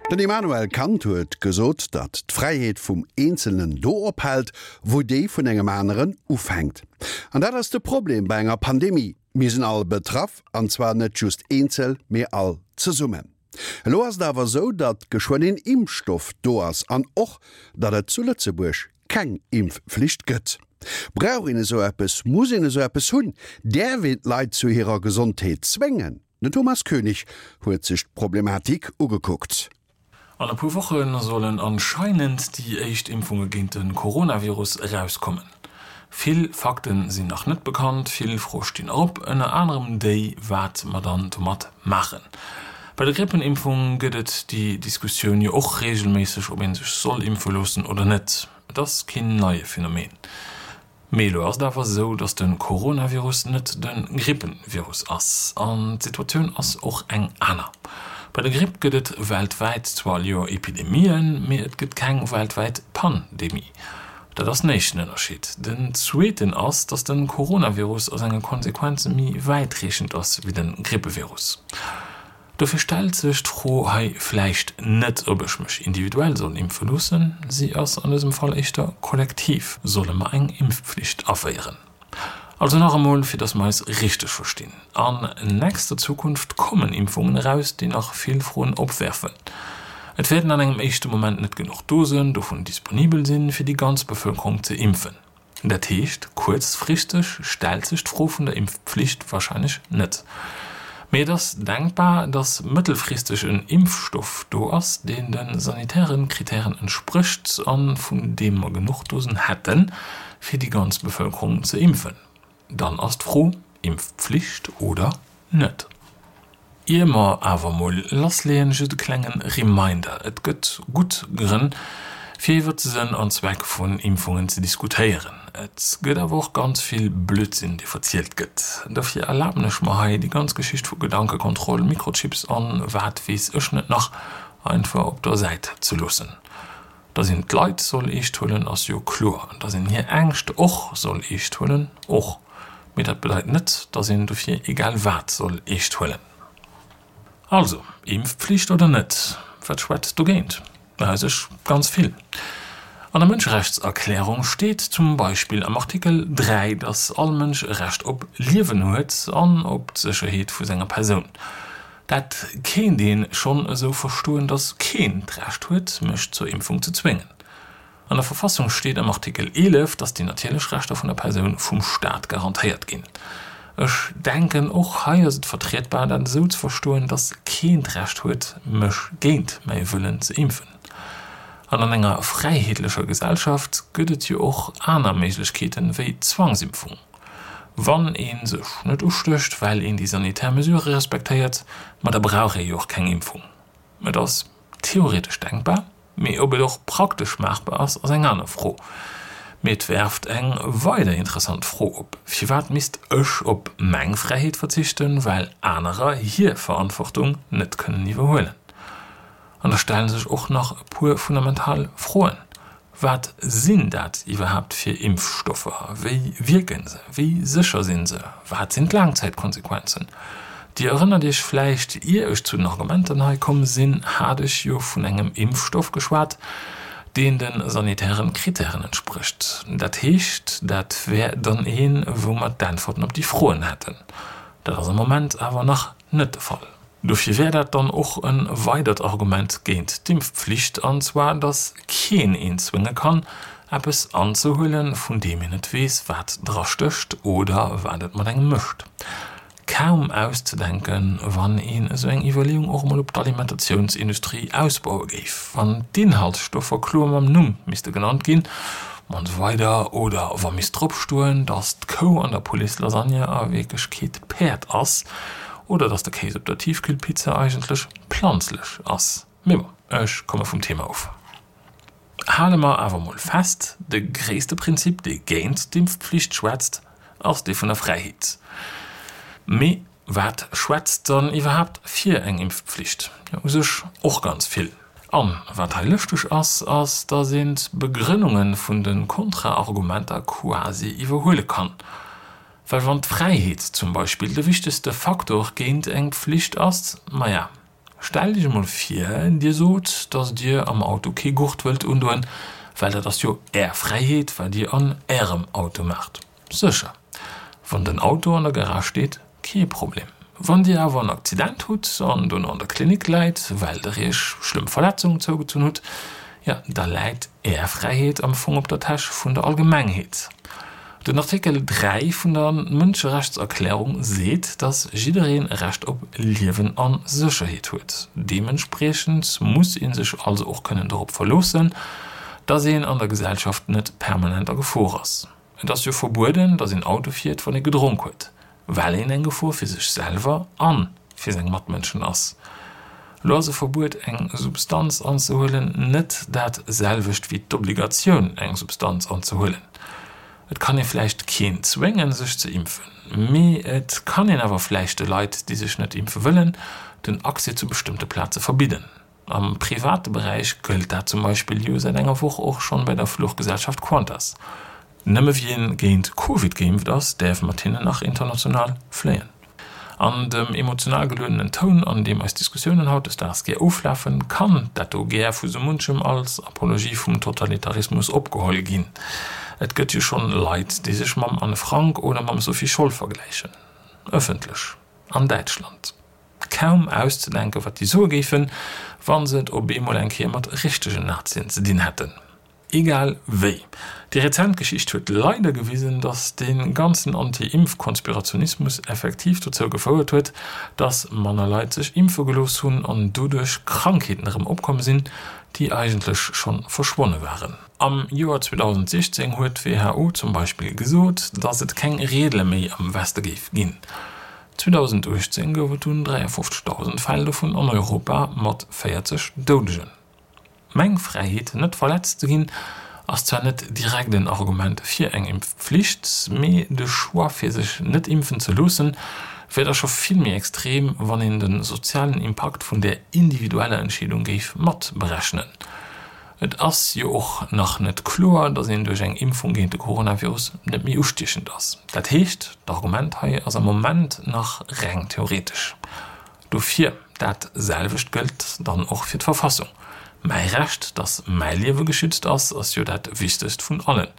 Den Immanuel Kant huet gesot, datt d'Fräiheet vum Eenzelnen do ophält, wou déi vun engem aneren ufänkt. An dat ass de Problem bei enger Pandemie, Mir sinn all betraff, an zwar net just eenzel, mee all zesummen. Elo ass et awer esou, datt geschwënn een Impfstoff do ass an och, datt et zu Lëtzebuerg keng Impfflicht gëtt. Brauch een esou eppes? Muss een esou eppes hunn? Däerf een d'Leit zu hirer Gesondheet zwéngen? Den Thomas Koenig huet sech d'Problematik ugekuckt. An e puer Woche sollen anscheinend déi éischt Impfunge géint de Coronavirus erauskommen. Vill Fakte sinn nach net bekannt, vill Froe stinn op, ënner anerem déi, wat mer dann domat maachen. Bei der Grippenimpfung gëtt et déi Diskussioun jo och reegelméisseg, ob ee sech soll impfe loossen oder net. Et ass keen neie Phänomen. Mee elo ass et awer esou, datt de Coronavirus net de Grippenvirus ass. An d'Situatioun ass och eng aner. Bei der Gripp gëtt et weltwäit zwar all Joer Epidemien, mee et gëtt keng weltwäit Pandemie. Dat ass den éischten Ënnerscheed. Den zweeten ass, datt de Coronavirus a senge Konsequenze méi wäitreechend ass wéi de Grippevirus. Dofir stellt sech d'Fro hei vläicht net, ob ech mech individuell soll impfe loossen, si ass an dësem Fall éischter kollektiv, Solle mer eng Impfpflicht aféieren? Also nach emol, fir datt mer eis richteg verstinn, An nächster Zukunft kommen Impfungen eraus, déi nach vill Froen opwerfen. Et wäerten an engem éischte Moment net genuch Dosen dovun disponibel sinn, fir déi ganz Bevëlkerung ze impfen. Dat heescht, kuerzfristeg stellt sech d'Fro vun der Impfpflicht warscheinlech net. Mee et ass denkbar, datt mëttelfristeg en Impfstoff do ass, deen de sanitäre Kritären entsprécht a vun deem mer genuch Dosen hätten, fir déi ganz Bevëlkerung ze impfen. Dann ass d'Fro, Impfpflicht oder net? Ier mer awer mol lassleeën, just e klengen Reminder, Et gëtt gutt Grënn, fir iwwert de Sënn an Zweck vun Impfungen ze diskutéieren. Et gëtt awer och ganz vill Blödsinn, dee verzielt gëtt. Dofir erlaben ech mer hei, déi ganz Geschicht vu Gedankekontroll, Mikrochips an wat weess ech net nach einfach op der Säit ze loossen. Dass een d'Leit soll eescht huelen, ass jo kloer. Dass een hir Ängscht och soll eescht huelen, och. Mee dat bedeit net, dass een dofir egal wat soll eescht huelen. Also, Impfpflicht oder net? Wat schwätzt dogéint? U sech ganz vill. An der Mënscherechtserklärung steet zum Beispill am Artikel 3, dass all Mënsch e Recht op Liewen huet an op d'Sécherheet vu senger Persoun. Dat kéint een schonn esou verstoen, dass keen d'Recht huet, mech zur Impfung ze zwéngen. An der Verfassung steet am Artikel 11, dass déi natierlech Rechter vun der Persoun vum Staat garantéiert ginn. Ech denken, och hei ass et vertrietbar, dat esou ze verstoen, dass keen d'Recht huet, mech géint mäi Wëllen ze impfen. An an enger fräiheetlecher Gesellschaft gëtt et jo och aner Méiglechkeeten wéi d'Zwangsimpfung. Wann ee sech net ustécht, well een déi sanitär Mesurë respektéiert, ma da brauch ee jo och keng Impfung. Et ass theoretesch denkbar, mee ob et och praktesch maachbar ass, ass eng aner Fro. Mee et werft eng weider interessant Fro op, Firwat misst ech op meng Fräiheet verzichten, well anerer hir Verantwortung net kënnen iwwerhuelen? An da stellen sech och nach e puer fundamental Froen, Wat sinn dat iwwerhaapt fir Impfstoffer? Wéi wierken se? Wéi sécher sinn se? Wat sinn d'Laangzäitkonsequenzen? Dir erënnert Iech vläicht, ier ech zu den Argumenten hei komm sinn, hat ech jo vun engem Impfstoff geschwat, deen de sanitären Kritären entsprécht. Dat heescht, dat wär dann een, wou mer d'Äntwerten op déi Froen hätten. Dat ass am Moment awer nach net de Fall. Dofir wär dat dann och e weidert Argument géint d'Impfpflicht, an zwar datt keen een zwénge kann, eppes anzehuelen, vun deem een net weess, wat dra stécht oder wat et mat engem mécht. Kaum auszedenken, wann een esou eng Iwwerleeung och emol op d'Alimentatiounsindustrie ausbaue géif, wann d'Inhaltsstoffer kloer mam Numm misste genannt ginn, an esou weider oder wa misst drop stoen, datt d'Kou an der Pouletslasagne a Wierklechkeet Päerd ass, Oder dass de Kéis op der Tiefkühlpizza eigentlech planzlech ass. Mee bon, ech komme vum Thema of. Hale mer awer mol fest, De gréisste Prinzip, dee géint d'Impfpflicht schwätzt, ass dee vun der Fräiheet. Mee wat schwätzt dann iwwerhaapt fir eng Impfpflicht? Jo, u sech och ganz vill. An wat hei lëschteg ass, ass, dass een d'Begrënnunge vun de Kontraargumenter quasi iwwerhuele kann. Well wann d'Fräiheet zum Beispill de wichtegste Faktor géint eng Pflicht ass, maja, Stellt Iech emol vir, Dir sot, dass Dir am Auto kee Gurt wëllt undoen, well dat ass jo Är Fräiheet, wat Dir an Ärem Auto maacht. Sécher, wann den Auto an der Garage steet, kee Problem. Wann Dir awer en Accident hutt an dono an der Klinik läit, well Der Iech schlëmm Verletzungen zougezunn hutt, jo, da läit Är Fräiheet am Fong op der Täsch vun der Allgemengheet. Den Artikel 3 vun der Mënscherechtserklärung seet, datt jiddereen e Recht op Liewen a Sécherheet huet. Deementspriechend muss ee sech also och kënnen dorop verloossen, datt een an der Gesellschaft net permanent a Gefor ass. Et ass jo verbueden, datt een Auto fiert, wann ee gedronk huet, well een eng Gefor fir sech selwer a fir seng Matmënschen ass. Elo ass e Verbuet, eng Substanz anzehuelen, net dat selwecht wéi d'Obligatioun, eng Substanz anzehuelen. Et kann ee vläicht keen zwéngen, sech ze impfen, mee et kann een awer vläicht de Leit, déi sech net impfe wëllen, den Accès zu bestëmmte Plaze verbidden. Am private Beräich gëllt dat zum Beispill jo säit enger Woch och schonn bei der Fluchgesellschaft Qantas. Nëmme wien géint Covid geimpft ass, däerf mat hinnen nach international fléien. An dem emotional geluedenen Toun, an deem eis Diskussiounen hautdesdaags gär oflafen, kann dat do gär vu sou munchem als Apologie vum Totalitarismus opgeholl ginn. Et gëtt jo schonn Leit, déi sech mam Anne Frank oder mam Sophie Scholl vergläichen. Ëffentlech. An Däitschland. Kaum auszedenken, wat déi soe géifen, wa se et op eemol eng Kéier mat richtegen Nazien ze dinn hätten. Egal wéi, déi rezent Geschicht huet leider gewisen, datt dee ganzen Anti-Impf-Konspirationismus effektiv dozou gefouert huet, datt manner Leit sech impfe gelooss hunn an doduerch Krankheeten erëm opkomm sinn, déi eigentlech schonn verschwonne waren. Am Joer 2016 huet d'WHO zum Beispill gesot, datt et keng Reedele méi am Weste géif ginn. 2018 gouf et dunn 53.000 Fäll dovun an Europa mat 40 Doudegen. Meng Fräiheet net verletzt ze ginn ass zwar net direkt en Argument fir eng Impfpflicht, mee de Choix fir sech net impfen ze loossen wär da scho vill méi extrem, wann een de sozialen Impakt vun där individueller Entscheedung géif mat berechnen. Et ass jo och nach net kloer, datt een duerch eng Impfung géint de Coronavirus net méi ustiechend ass. Dat heescht, d'Argument hei ass am Moment nach reng theoretesch. Dofir, dat selwecht gëllt dann och fir d'Verfassung. Mäi Recht, datt mäi Liewe geschützt ass, ass jo dat wichtegst vun allen.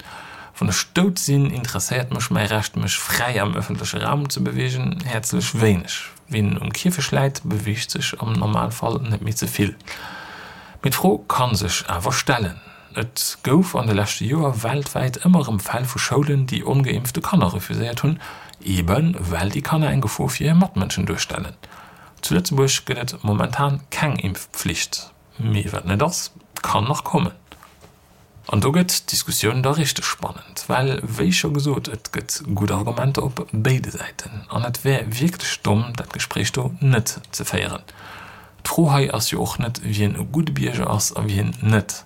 Wann ech dout sinn, interesséiert mech mäi Recht, mech fräi am ëffentleche Raum ze beweegen, häerzlech wéineg. Wien um Kierfecht läit, beweegt sech am Normalfall net méi ze vill. Mee d'Fro ka sech awer stellen. Et gouf an de leschte Joer weltwäit ëmmer erëm Fäll vu Schoulen, déi ongeimpfte Kanner refuséiert hunn, eebe well déi Kanner eng Gefor fir hir Matmënschen duerstellen. Zu Lëtzebuerg gëtt et momentan keng Impfpflicht. Mee wat net ass, kann nach kommen. An do gëtt d'Diskussioun da richteg spannend, well, wéi scho gesot, et gëtt gutt Argumenter op béide Säiten an et wär wierklech domm, dat Gespréich do net ze féieren. D'Fro hei ass jo och net, wien e gudde Bierger ass a wien net.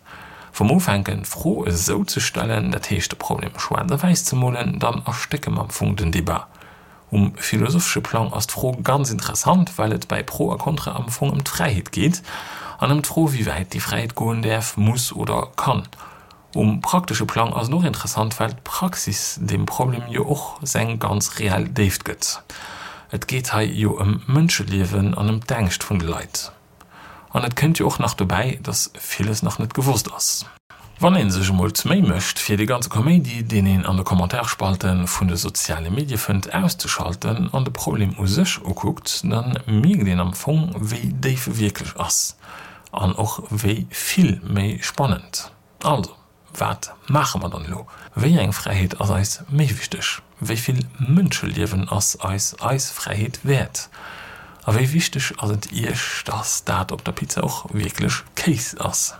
Wa mer ufänken, d'Fro esou ze stellen, dat heescht de Problem schwaarz a wäiss ze molen, dann erstécke mer am Fong den Debat. Um philosophesche Plang ass d'Fro ganz interessant, well et bäi Pro a Contra am Fong ëm d'Fräiheet geet an ëm d'Fro, wéi wäit déi Fräiheet goen däerf, muss oder kann. Um praktesche Plang ass et och interessant, well d'Praxis deem Problem jo och seng ganz reell Déift gëtt. Et geet hei jo ëm Mënscheliewen an ëm d'Ängscht vun de Leit. An et kënnt jo och nach dobäi, dass villes nach net gewosst ass. Wann ee sech emol d'Méi mécht, fir dee ganze Kaméidi, deen een an de Kommentarspalten vun de soziale Medie fënnt, auszeschalten an de Problem u sech ukuckt, da mierkt een am Fong, wéi déif e wierklech ass. An och wéi vill méi spannend. Also, wat maache mer dann elo? Wéi eng Fräiheet ass eis méi wichteg? Wéi vill Mënscheliewen ass eis eis Fräiheet wäert? A wéi wichteg ass et Iech, dass dat op der Pizza och wierklech Kéis ass?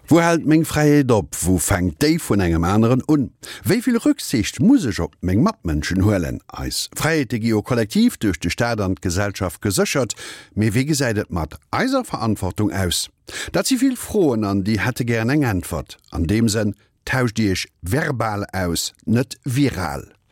Wou hält meng Fräiheet op, wou fänkt déi vun engem aneren un? Wéi vill Rücksicht muss ech op meng Matmënschen huelen? Eis Fräiheete gi jo kollektiv duerch de Staat an d'Gesellschaft geséchert, mee wéi gesäit et mat eiser Verantwortung aus? Dat si vill Froen an déi hätte gären eng Äntwert. An deem Sënn, tauscht Iech verbal aus, net viral.